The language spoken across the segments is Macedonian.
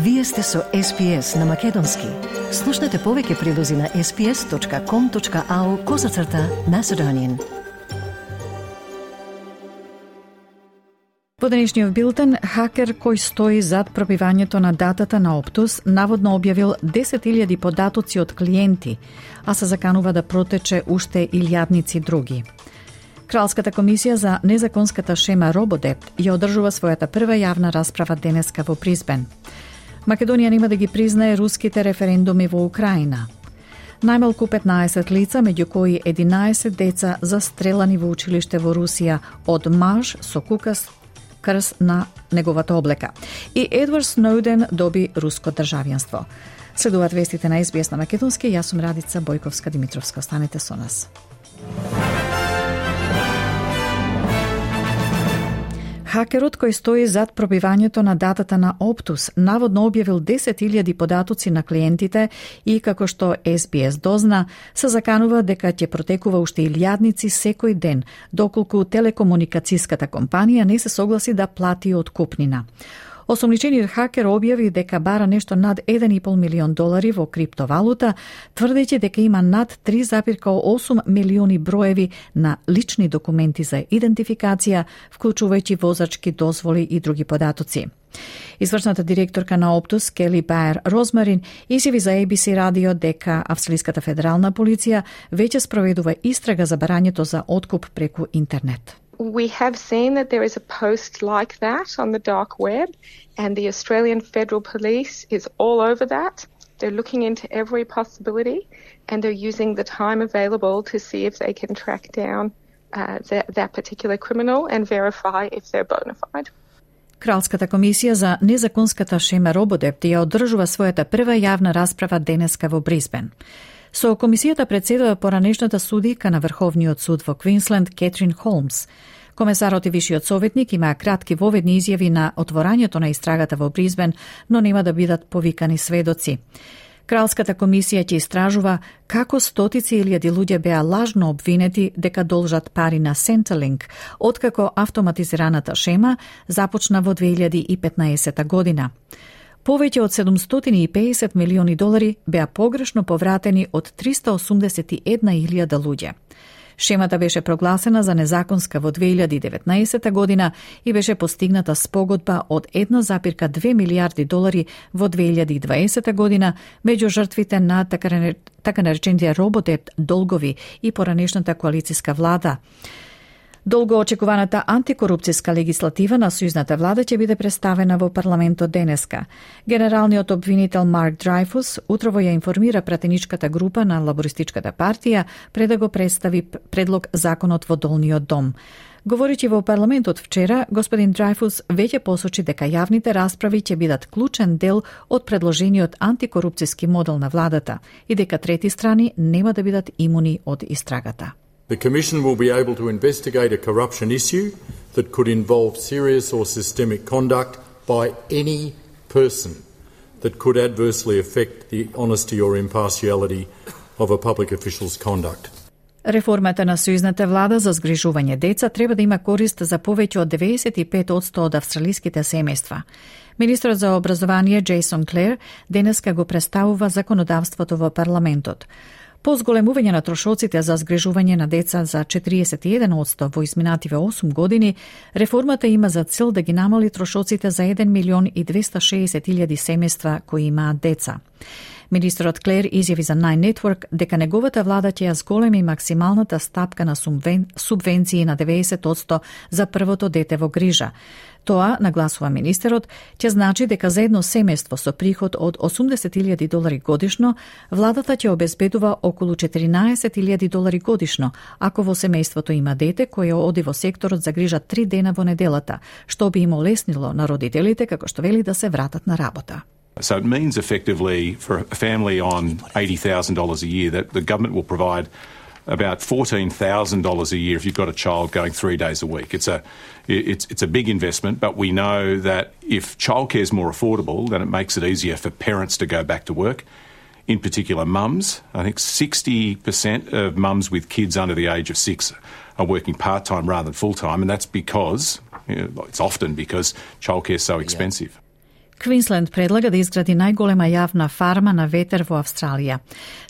Вие сте со SPS на Македонски. Слушнете повеќе прилози на sps.com.au/Macedonian. Во денешниот билтен, хакер кој стои зад пробивањето на датата на Optus наводно објавил 10.000 податоци од клиенти, а се заканува да протече уште илјадници други. Кралската комисија за незаконската шема RoboDebt ја одржува својата прва јавна расправа денеска во Бризбен. Македонија нема да ги признае руските референдуми во Украина. Најмалку 15 лица, меѓу кои 11 деца застрелани во училиште во Русија од маж со кукаст крст на неговата облека. И Едвард Сноуден доби руско државјанство. Следуваат вестите на SBS на Македонски. Јас сум Радица Бојковска-Димитровска. Останете со нас. Хакерот кој стои зад пробивањето на датата на Optus наводно објавил 10.000 податоци на клиентите и, како што SBS дозна, се заканува дека ќе протекува уште илјадници секој ден, доколку телекомуникацијската компанија не се согласи да плати откупнина. Осомничениот хакер објави дека бара нешто над $1,5 милион во криптовалута, тврдејќи дека има над 3,8 милиони броеви на лични документи за идентификација, вклучувајќи возачки дозволи и други податоци. Извршната директорка на Optus, Кели Баер Розмарин, изјави за ABC радио дека австралиската федерална полиција веќе спроведува истрага за барањето за откуп преку интернет. We have seen that there is a post like that on the dark web, and the Australian Federal Police is all over that. They're looking into every possibility, and they're using the time available to see if they can track down that particular criminal and verify if they're bona fide. Кралската комисија за незаконската шема RoboDebt ја одржува својата прва јавна расправа денеска во Бризбен. Со комисијата председава поранешната судика на Врховниот суд во Квинсленд Кетрин Холмс. Комесарот и вишиот советник имаа кратки воведни изјави на отворањето на истрагата во Бризбен, но нема да бидат повикани сведоци. Кралската комисија ќе истражува како стотици илјади луѓе беа лажно обвинети дека должат пари на Centrelink, откако автоматизираната шема започна во 2015 година. Повеќе од $750 милиони беа погрешно повратени од 381.000 луѓе. Шемата беше прогласена за незаконска во 2019 година и беше постигната спогодба од $1,2 милијарди во 2020 година меѓу жртвите на така наречените RoboDebt долгови и поранешната коалицијска влада. Долго очекуваната антикорупцијска легислатива на сојузната влада ќе биде представена во парламентот денеска. Генералниот обвинител Марк Драйфус утрово ја информира пратеничката група на Лабористичката партија пред да го представи предлог законот во долниот дом. Говоричи во парламентот вчера, господин Драйфус веќе посочи дека јавните расправи ќе бидат клучен дел од предложениот антикорупцијски модел на владата и дека трети страни нема да бидат имуни од истрагата. The Commission will be able to investigate a corruption issue that could involve serious or systemic conduct by any person that could adversely affect the honesty or impartiality of a public official's conduct. Реформата на сојузната влада за згрижување деца треба да има корист за повеќе од 95% од австралиските семејства. Министрот за образование Джейсон Клер денеска го представува законодавството во парламентот. По зголемување на трошоците за згрижување на деца за 41% во изминативе 8 години, реформата има за цел да ги намали трошоците за 1.260.000 семејства кои имаат деца. Министрот Клер изјави за Nine Network дека неговата влада ќе ја зголеми максималната стапка на субвенции на 90% за првото дете во грижа. Тоа, нагласува министерот, ќе значи дека за едно семејство со приход од $80,000 годишно, владата ќе обезбедува околу $14,000 годишно, ако во семејството има дете кое оди во секторот за грижа 3 дена во неделата, што би им олеснило на родителите како што вели да се вратат на работа. So it means effectively for a family on $80,000 a year that the government will provide about $14,000 a year if you've got a child going 3 days a week. It's a big investment, but we know that if childcare is more affordable, then it makes it easier for parents to go back to work. In particular, mums. I think 60% of mums with kids under the age of 6 are working part-time rather than full-time, and that's because, it's often because childcare is so expensive. Квинсленд предлага да изгради најголема јавна фарма на ветер во Австралија.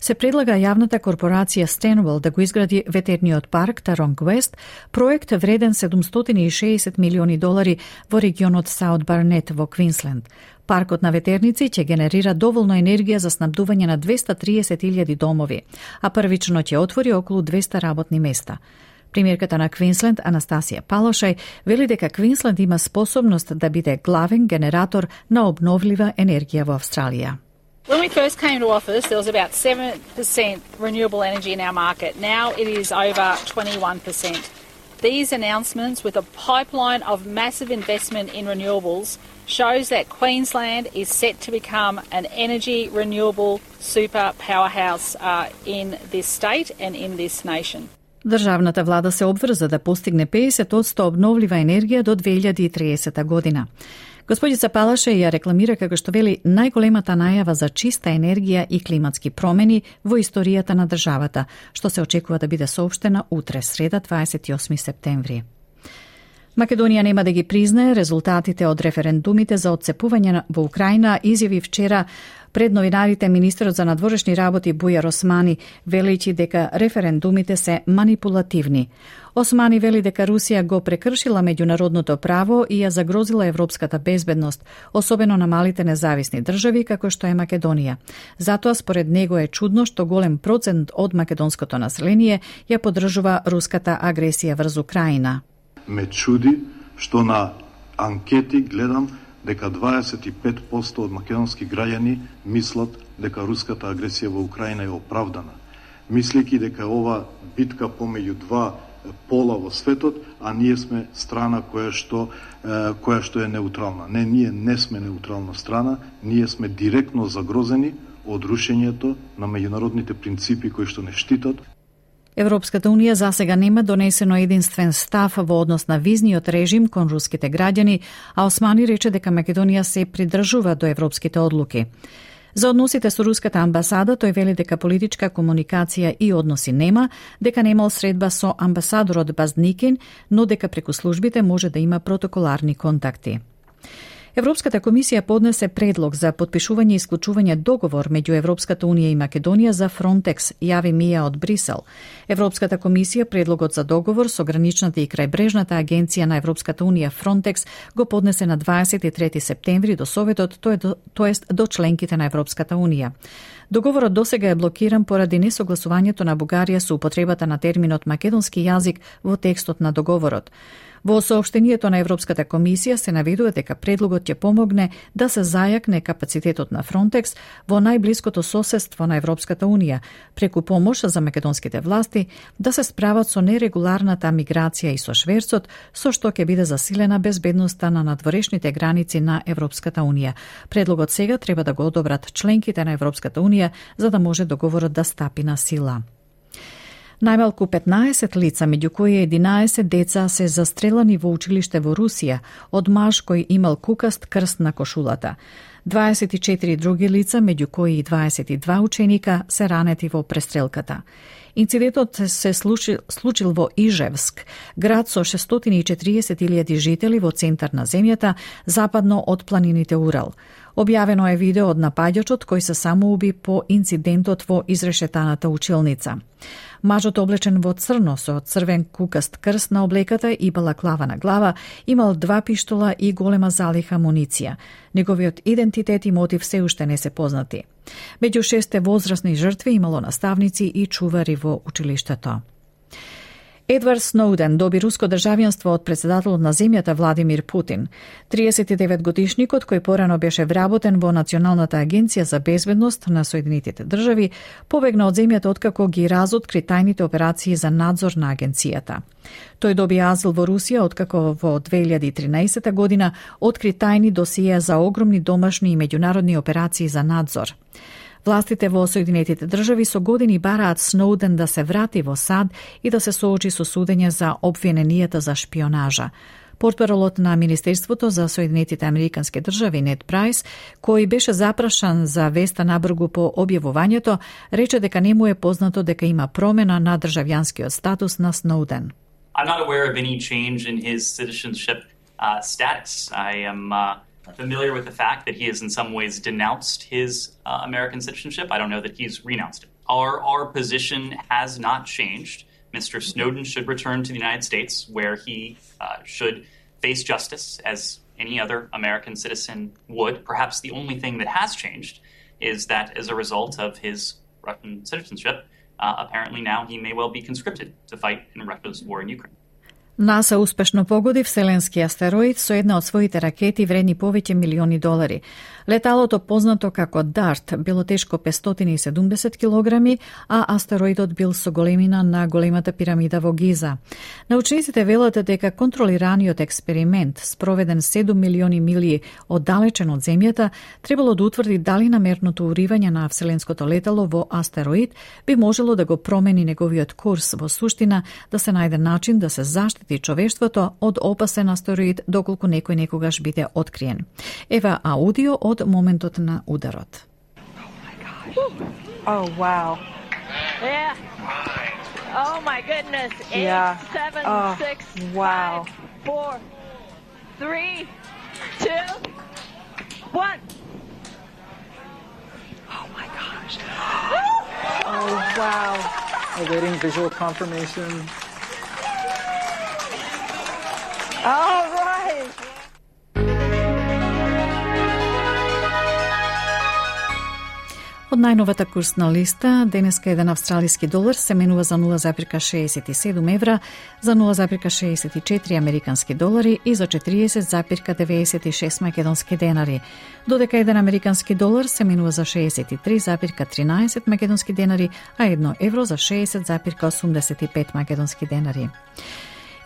Се предлага јавната корпорација Stanwell да го изгради ветерниот парк Taronga West, проект вреден $760 милиони во регионот Саут Барнет во Квинсленд. Паркот на ветерници ќе генерира доволно енергија за снабдување на 230.000 домови, а првично ќе отвори околу 200 работни места. Премиерката на Квинсленд, Анастасија Палошај, вели дека Квинсленд има способност да биде главен генератор на обновлива енергија во Австралија. When we first came to office, there was about 7% renewable energy in our market. Now it is over 21%. These announcements, with a pipeline of massive investment in renewables, shows that Queensland is set to become an energy renewable super powerhouse in this state and in this nation. Државната влада се обврза да постигне 50% обновлива енергија до 2030 година. Господица Палаше ја рекламира како што вели најголемата најава за чиста енергија и климатски промени во историјата на државата, што се очекува да биде соопштена утре, среда 28 септември. Македонија нема да ги признае резултатите од референдумите за отцепување во Украина, изјави вчера пред новинарите министерот за надворешни работи Бујар Османи, велејќи дека референдумите се манипулативни. Османи вели дека Русија го прекршила меѓународното право и ја загрозила европската безбедност, особено на малите независни држави како што е Македонија. Затоа според него е чудно што голем процент од македонското население ја поддржува руската агресија врз Украина. Ме чуди што на анкети гледам дека 25% од македонски граѓани мислат дека руската агресија во Украина е оправдана, мислејќи дека ова битка помеѓу два пола во светот, а ние сме страна која што е неутрална. Не, ние не сме неутрална страна, ние сме директно загрозени од рушењето на меѓународните принципи кои што не штитат. Европската унија засега нема донесено единствен став во однос на визниот режим кон руските граѓани, а Османи рече дека Македонија се придржува до европските одлуки. За односите со руската амбасада, тој вели дека политичка комуникација и односи нема, дека немал средба со амбасадорот Базникин, но дека преку службите може да има протоколарни контакти. Европската комисија поднесе предлог за подпишување и исклучување договор меѓу Европската унија и Македонија за Фронтекс, јави Мија од Брисел. Европската комисија предлогот за договор со граничната и крајбрежната агенција на Европската унија Фронтекс го поднесе на 23 септември до Советот, тоест до членките на Европската унија. Договорот досега е блокиран поради несогласувањето на Бугарија со употребата на терминот македонски јазик во текстот на договорот. Во соопштението на Европската комисија се наведува дека предлогот ќе помогне да се зајакне капацитетот на Фронтекс во најблиското соседство на Европската унија, преку помош за македонските власти да се справат со нерегуларната миграција и со шверцот, со што ќе биде засилена безбедноста на надворешните граници на Европската унија. Предлогот сега треба да го одобрат членките на Европската унија за да може договорот да стапи на сила. Најмалку 15 лица, меѓу кои 11 деца, се застрелани во училиште во Русија од маж кој имал кукаст крст на кошулата. 24 други лица, меѓу кои 22 ученика, се ранети во престрелката. Инцидентот се случил во Ижевск, град со 640.000 жители во центар на земјата, западно од планините Урал. Објавено е видео од напаѓачот кој се самоуби по инцидентот во изрешетаната училница. Мажот облечен во црно со црвен кукаст крст на облеката и балаклава на глава имал 2 пиштола и голема залиха амуниција. Неговиот идентитет и мотив се уште не се познати. Меѓу 6 возрастни жртви имало наставници и чувари во училиштето. Едвард Сноуден доби руско државјанство од председателот на земјата Владимир Путин. 39-годишникот, кој порано беше вработен во Националната агенција за безбедност на Соединетите држави, побегна од земјата откако ги разоткри тајните операции за надзор на агенцијата. Тој доби азил во Русија откако во 2013 година откри тајни досиеа за огромни домашни и меѓународни операции за надзор. Властите во Соединетите држави со години бараат Сноуден да се врати во САД и да се соочи со судење за обвиненијата за шпионажа. Портпаролот на Министерството за Соединетите Американски држави Нед Прайс, кој беше запрашан за веста набргу по објавувањето, рече дека не му е познато дека има промена на државјанскиот статус на Сноуден. I'm not aware of any change in his citizenship status. I am familiar with the fact that he has in some ways denounced his American citizenship. I don't know that he's renounced it. Our position has not changed. Mr. Snowden should return to the United States, where he should face justice as any other American citizen would. Perhaps the only thing that has changed is that as a result of his Russian citizenship, apparently now he may well be conscripted to fight in Russia's war in Ukraine. НАСА успешно погоди вселенски астероид со една од своите ракети вредни повеќе милиони долари. Леталото, познато како DART, било тешко 570 килограми, а астероидот бил со големина на големата пирамида во Гиза. Научниците велат дека контролираниот експеримент, спроведен 7 милиони милји оддалечен од Земјата, требало да утврди дали намерното уривање на вселенското летало во астероид би можело да го промени неговиот курс, во суштина да се најде начин да се заштити човештвото од опасен астероид доколку некој некогаш биде откриен. Ева аудио од моментот на ударот. Oh, wow. Yeah. Oh, my goodness. 8, 7, 6, wow. 5, 4, 3, 2, 1. Oh, my gosh. Oh, wow. Awaiting visual confirmation. All right. Од најновата курсна листа, денеска еден австралиски долар се менува за 0,67 евра, за 0,64 американски долари и за 40,96 македонски денари. Додека еден американски долар се менува за 63,13 македонски денари, а 1 евро за 60,85 македонски денари.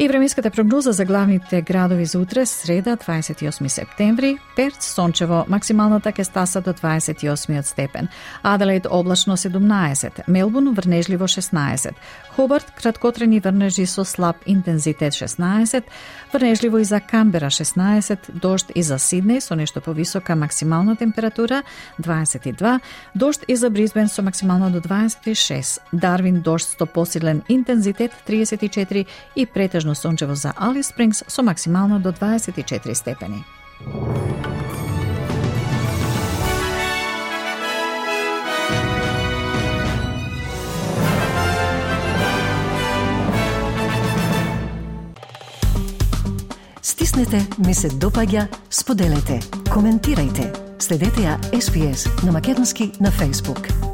И временската прогноза за главните градови за утре, среда, 28 септември. Перт, сончево, максималната ќе стаса до 28 степен. Аделаид, облачно 17. Мелбурн, врнежливо 16. Хобарт, краткотрени врнежи со слаб интензитет 16. Врнежливо и за Канбера 16. Дожд и за Сиднеј со нешто повисока максимална температура 22. Дожд и за Брисбен со максимално до 26. Дарвин, дожд со посилен интензитет 34 и претежно сончево за Алис Спрингс со максимално до 24 степени. Стиснете, ми се допаѓа, споделете, коментирајте. Следете ја SPS на Македонски на Facebook.